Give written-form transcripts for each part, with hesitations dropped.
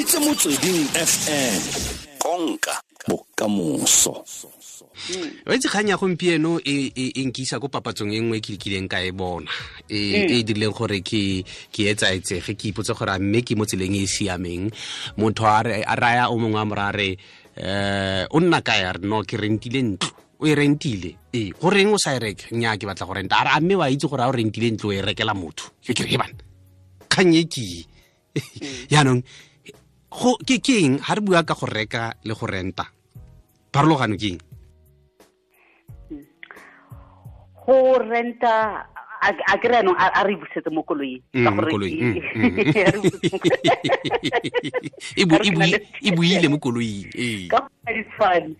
reditse Motsweding FM, konka bokamoso. O itse kgang ya gompieno e nkisa ko papatsong e nngwe ke kileng ka e bona e dirileng gore ke etsaetsege, ke ipotse gore a mme ke mo tseleng e e siameng. Motho a raya o mongwe a mo raya re o nna kae? A re no, ke rentile ntlo. O e rentile? Ee. Go reng o sa e reke? Nnyaa, ke batla go renta. A re a mme wa itse gore a o rentile ntlo o e rekela motho? Ke re he bana, kgang e ke jaanong ke eng ha re bua ka go reka le go renta, pharologano ke eng? Go renta a ke re anong a re busetse mo koloing, ka gore e buile mo koloing. Ka go di tshwane.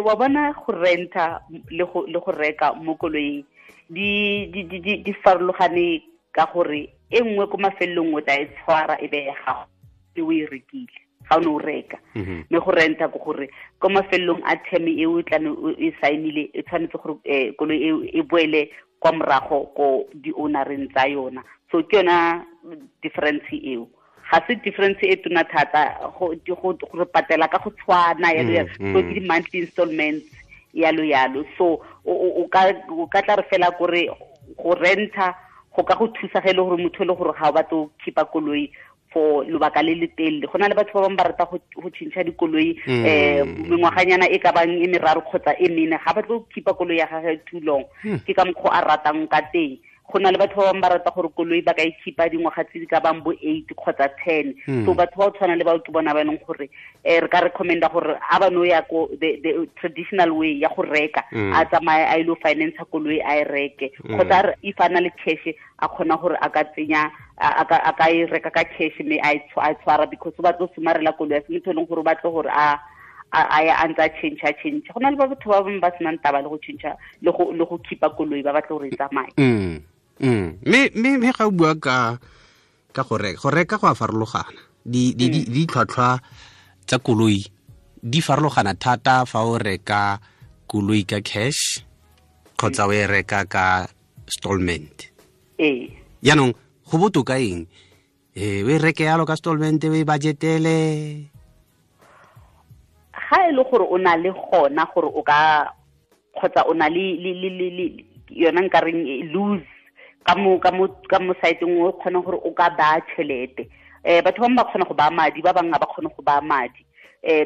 Wa bona go renta le go reka mo koloing di farologane ka gore e nngwe ko mafelong o tla e tshwara e be ya gago e o e rekile ga o ne o reka, mme go renta ke gore ko mafelong a term e o tla e saenile e tshwanetse gore koloi e e boele kwa morago ko di-ownereng tsa yona. So ke yona difference eo, ga se difference e tona thata go patela ka go tshwana yalo yalo. So ke di-monthly installments yalo yalo. So o ka tla re fela kore go renta go ka go thusa ge e le gore motho e le gore ga o batlo go keepa koloi for lobaka le le telele. Go na le batho ba bangwe ba rata go tšhentšha dikoloi mengwaganyana e ka bang e meraro kgotsa e mene, ga batlo go keepa koloi ya gagwe too long, ke ka mokgwa a ratang ka teng. Go na le batho ba bangwe ba rata gore koloi ba ka e keepa dingwaga tse di ka bang bo 8 kgotsa 10. So batho ba o tshwana le bao ke bona ba e leng gore re ka recommenda gore a ba no ya ko the traditional way ya go reka, a tsamaye a ile go finance koloi a e reke, kgotsa if a na le cash a kgona gore a ka tsenya a ka e reka ka cash mme a e tshwara, because o batlo somarela koloi ya se motho e leng gore o batlo gore a ya a ntse a change. Go na le ba batho ba bangwe ba senang taba le go change le go keepa koloi, ba batla gore e tsamaye. Mme ga o bua ka go reka go a farologana. Ditlhwatlhwa tsa koloi di farologana thata fa o reka koloi ka cash kgotsa o e reka ka stallment. Jaanong go botoka eng? O e reke yalo ka stallment, o e budgetele? Ga e le gore o na le gona gore o ka kgotsa o na le yona nkareng lose ka mo site-eng o kgona gore o ka baya tšhelete. Batho ba bangwe ba kgona go baya madi, ba bangwe ga ba kgone go baya madi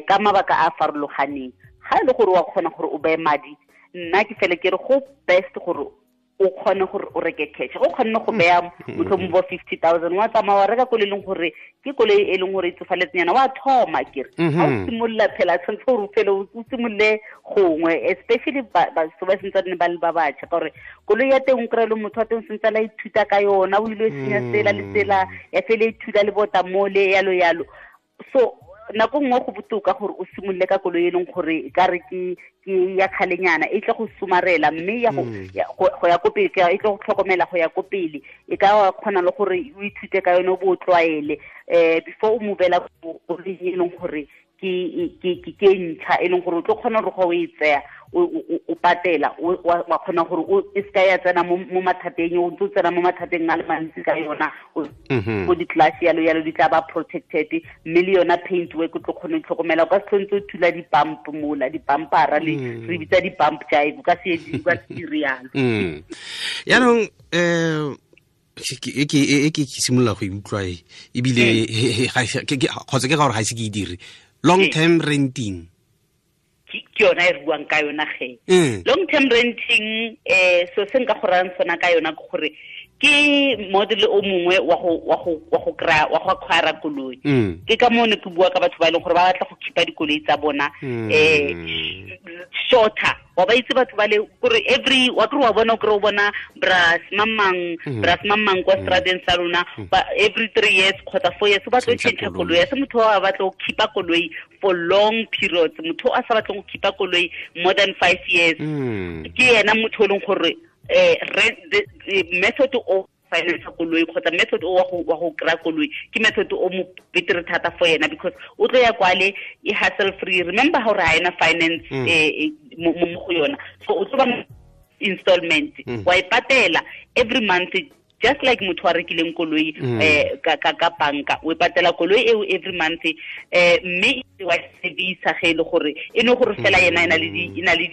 ka mabaka a farologaneng. Ga e le gore wa kgona gore o beye madi, nna ke fele ke re go best gore o kgone gore o reke cash. Go kgonne go beya motlhomong bo 50,000 wa tsamaya wa reka koloi e leng gore ke koloi e leng gore e tsofaletseng wa thoma kere. Ha o simolola phela tshwanetse gore o fele o simolole gongwe, especially batho ba sentse ba le ba batjha, ka gore koloi ya teng o kry-e le motho wa teng sentse a ithuta ka yona, o ile senya tsela le tsela ya fele ithuta le bota mole yalo yalo. So nako nngwe go botoka gore o simolole ka koloi e leng gore ka re ke ya kgalenyana e tle go somarela, mme ya go ya ko pele, e tle go tlhokomela go ya ko pele, e ka kgona le gore o ithute ka yone o bo o tlwaele before o movela koloi e leng gore ke ntšha, e leng gore o tlo kgona gore ga o e tseya o patela wa kgona gore e seka ya tsena mo mathateng, o ntse o tsena mo mathateng a le mantsi ka yona, ko di-class yalo yalo di tla ba protected, mme le yona paint work o tlo kgona go itlhokomela. O ka se tlhontse o thula di-bump mola, di-bumpera le re bitsa di-bump jive, o ka se dire yalo. Jaanong ke simolola go e utlwa ebile kgotsa ke ka gore ga ise ke e dire. Long term renting ke yona e re buang ka yona ge. Long term renting so se nka go rayang sona ka yona ke gore ke model o mongwe wa go kry-a wa go acquire koloi. Ke ka moo ne ke bua ka batho ba e leng gore ba batla go keepa dikoloi tsa bona shorter. Wa ba itse batho ba le gore every wa kry wa bona o kry o bona bras mamang kwa stradeng sa lona every 3 years kgotsa 4 years o batla go change koloi. Ya se motho wa batla go keepa koloi for long periods, motho a sa batleng go keepa koloi more than 5 years ke yena motho o leng gore the method o finance koloi kgotsa method o wa go kry-a koloi ke method o mo betere thata for yena, because o tlo ya kwale e hassle free. Remember gore ga ena finance mo go yona, so o tlo ba installment wa e patela every month Just like motho a rekileng koloi ka banka, o patela koloi eo every month, mme wa service ge le gore e no gore fela yena ena le di ina le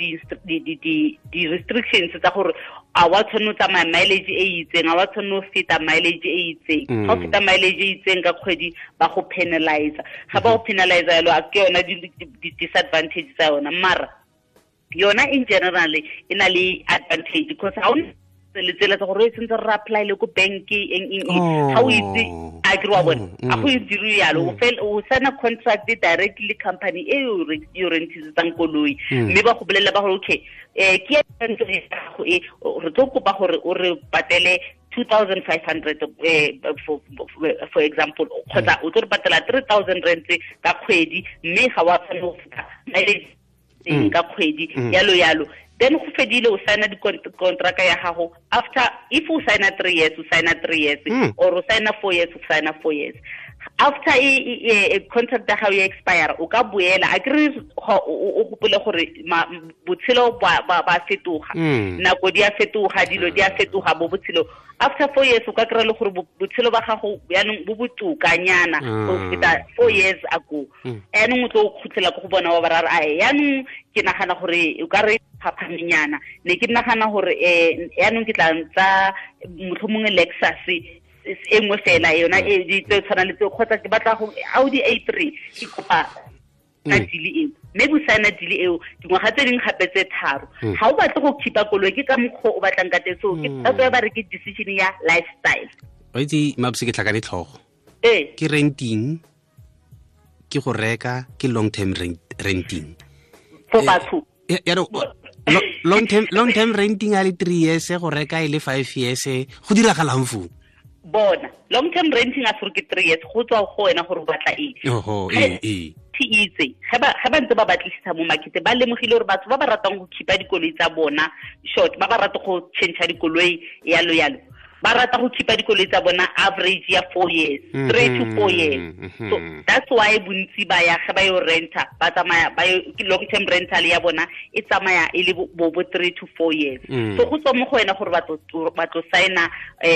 di restrictions tsa gore a wa tshwanetse tsamaya mileage e itseng, a wa tshwanetse feta mileage e itseng. Ga o feta mileage e itseng ka kgwedi ba go penalize. Ga ba go penalize yalo, a ke yona di disadvantage tsa yona. Mara yona in general e na le advantage because ha o le tsela tsa gore e sentse re apply le ko bank eng eng, ga o itse a ke wa bona a go itse yalo, o fel o sign contract directly company e o rentisetsang koloi, mme ba go bolella ba gore okay, ke ntse go e re tlo kopa gore o re patele 2500 for example, kgotsa o tlo re patela 3000 rand ka kgwedi, mme ga wa tshwanela go feta mileage ka kgwedi, yalo yalo. Then go fedile, o signa di contract ya gago. After, if o signa 3 years, o signa 3 years, or o signa 4 years, o signa 4 years. After e contract ya gago ya expire, o ka boela. A kere o gopole gore botshelo ba fetoga, nako di a fetoga, dilo di a fetoga bo botshelo. After 4 years o ka kry-a le gore botshelo ba gago yaanong bo botokanyana go feta 4 years ago. Yaanong o tlo khutlela ko go bona wa ba ra re, yaanong ke nagana gore o ka re phaphamanyana, ne ke nagana gore yaanong ke tla ntsa motlhomongwe Lexus e nngwe fela yona e di tse tshwana le tse, kgotsa ke batla go Audi A3, ke kopa ka deal eo. Mme bo signa deal eo dingwaga tse dingwe gape tse 3. Ga o batle go khipa koloi ke ka mokgwa o batlang ka teng, so ke thato ya ba re ke decision ya lifestyle. Wa itse Mabuse, ke tlhakane tlhogo. Ke renting, ke go reka, ke long term renting for batho. Ya long term renting a le 3 years, go reka e le 5 years, go diragalang foo? Bona long term renting a for ke 3 years, go tswa go wena gore o batla eng. Oho, itse ga ba ntse ba batlisisa mo market, ba lemogile gore batho ba ba ratang go khipa dikoloi tsa bona short, ba ba rata go change dikoloi yalo yalo, ba rata go khipa dikoloi tsa bona average ya 4 years, 3 to 4 years. So that's why bontsi ba ya ga ba yo renta, ba tsamaya ba yo long term rental ya bona e tsamaya e le bo 3 to 4 years. So go tswa mo go wena gore ba tlo signa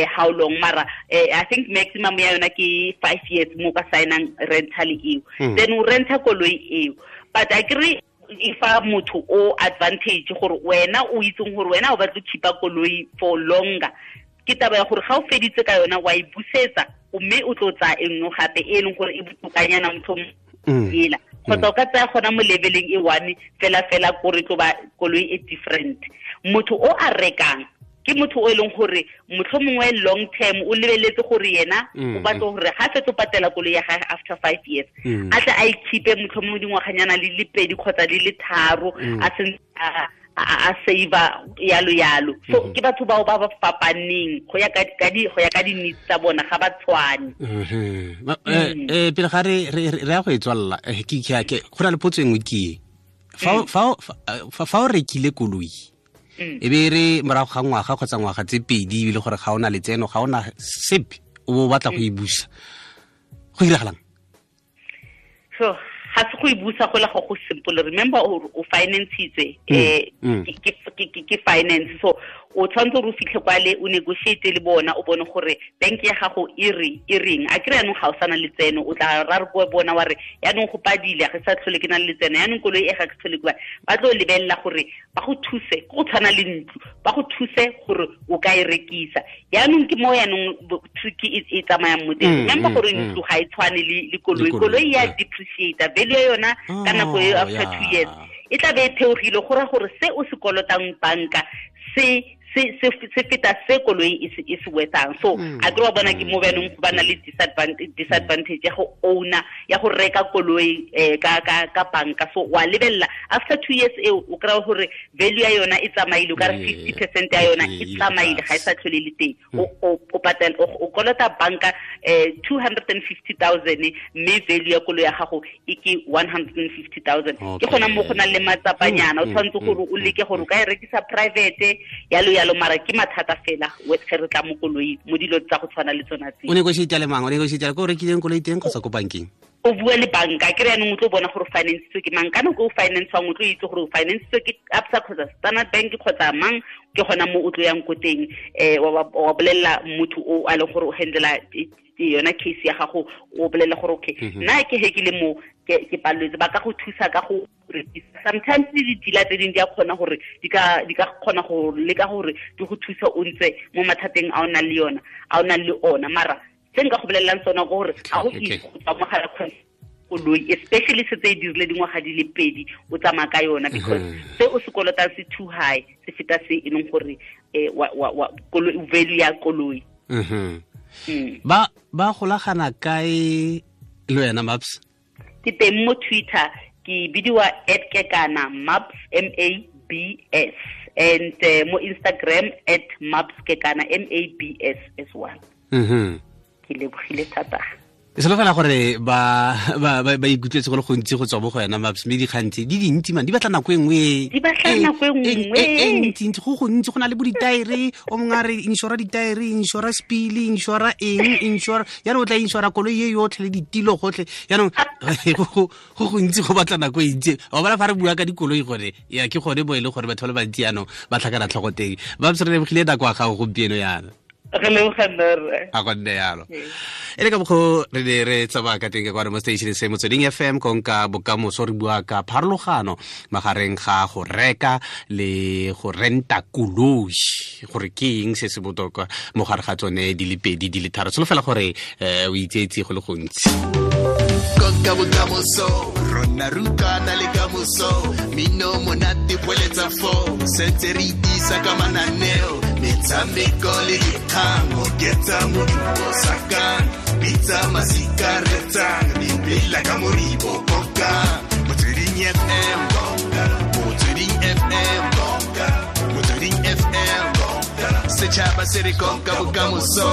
how long, mara I think maximum ya yona ke 5 years mo ka signang rental eo. Then o renta koloi eo, but I agree if a motho o advantage gore wena o itseng gore wena o batla go khipa koloi for longer, ke taba ya gore ga o feditse ka yona wa e busetsa, mme o tlo tsaya e nngwe gape e leng gore e botokanyana motlhomong ela, kgotsa o ka tsaya gona mo leveleng e one fela fela kore tlo ba koloi e different. Motho o a rekang ke motho o e leng gore motlhomongwe long term o lebeletse gore yena o batla gore ga fetso patela koloi ya gagwe after 5 years, a tle a ikhipe motlhomongwe dingwaganyana le le 2 kgotsa le le 3, a sentse a save yalo yalo. So ke batho bao ba ba fapaneng go ya ka di needs tsa bona, ga ba tshwane. Pele ga re ya go e tswalla, ke go na le potso e nngwe ke e. Fa o rekile koloi, e be re morago ga ngwaga kgotsa ngwaga tse 2 ebile gore ga ona letseno, ga ona sepe, o bo batla go e busa, go diragalang? So ga se go e busa go le go simple. Remember o financitse, ke finance, so o tshwanetse gore o fitlhe kwale o negotiate le bona, o bone gore bank ya gago e reng. A kry yaanong ga o sana letseno, o tla ra re ko bona wa re yaanong go padile, ga sa tlhole ke na le letseno, yaanong koloi e ga ke tlhole ke ba tlo lebelela gore ba go thuse, go tshwana le ntlo, ba go thuse gore o ka e rekisa. Yaanong ke mo yaanong tricky e tsamayang mo teng. Remember gore ntlo ga e tshwane le koloi, koloi ya depreciate value ya yona ka nako e after 2 years e tla be e theogile, go ra gore se o se kolotang banka se feta se koloi e se wetsang. So a ke wa bona ke mo banong ba na le disadvantage ya go owner, ya go reka koloi ka banka. So wa lebella after 2 years eo o kry gore value ya yona e tsamaile, o ka re 50% ya yona e tsamaile, ga e sa tlhole le teng. O patela, o kolota banka 250,000, mme value ya koloi ya gago e ke 150,000. Ke gona mo go nang le matsapanyana, o tshwanetse gore o leke gore o ka e rekisa private yalo yalo, mara ke mathata fela ge re tla mo koloi mo dilo tsa go tshwana le tsona tse. O negotiate le mang? O negotiate ko o rekileng koloi teng kgotsa ko bankeng? O bua le banka ke re yanong o tlo bona gore financetswe ke mang ka nako o financewang o tlo itse gore o financetswe ke Absa kgotsa Standard Bank kgotsa mang ke gona mo o tlo yang ko teng wa bolelela motho o a leng gore o handlela yona case ya gago o bolelela gore okay nna ke he ke le mo ke paleletse ba ka go thusa ka go rekisa. Sometimes di-dealer tse dingwe di a kgona gore di ka kgona go leka gore di go thusa o ntse mo mathateng a o nang le yona a o nang le ona mara se nka go bolelelang sona ke gore ga go itse go tswa mo gare koloi especially se tse e dirile dingwaga di le pedi o tsamaya ka yona because se o se kolotang se too high se feta se e leng gore value ya koloi. Ba golagana kae le wena Maps? Ke teng mo Twitter ke bidiwa @kekana Maps MABS and mo Instagram @mapskekana MABS as well. Ke lebogile thata. E solofela gore ba ikutlwetse go le gontsi go tswa mo go wena Maps mme dikgantsi di dintsi man di batla nako e nngwe di batla nako e nngwe e ntsi go gontsi go na le bo ditaere o mongwe a re insura ditaere insura spili insura eng insura jaanong o tla insura koloi e yotlhe le ditilo gotlhe jaanong go gontsi go batla nako e ntsi wa bona fa re bua ka dikoloi gore ya ke gone bo e le gore batho ba le bantsi jaanong ba tlhakana tlhogo teng. Maps re lebogile nako ya gago gompieno yana. Re leboga nna. A go nne yalo. E le ka mokgwa re ne re tsamaya ka teng ka kwano mo station se Motsweding FM konka bokamoso re bua ka pharologano magareng ga go reka le go renta koloi gore ke eng se se botoka mo gare ga tsone di le pedi di le tharo. Solofela gore o itseetse go le gontsi. Konka bokamoso rona rutana le kamoso mino monate boeletsa fo sentse re itisa ka mananeo metshameko le dikgang oketsa modumo sakang bitsa masika retsang dipela ka moribo konka Motsweding FM konka Motsweding FM konka Motsweding FM konka setšhaba se re konka bokamoso.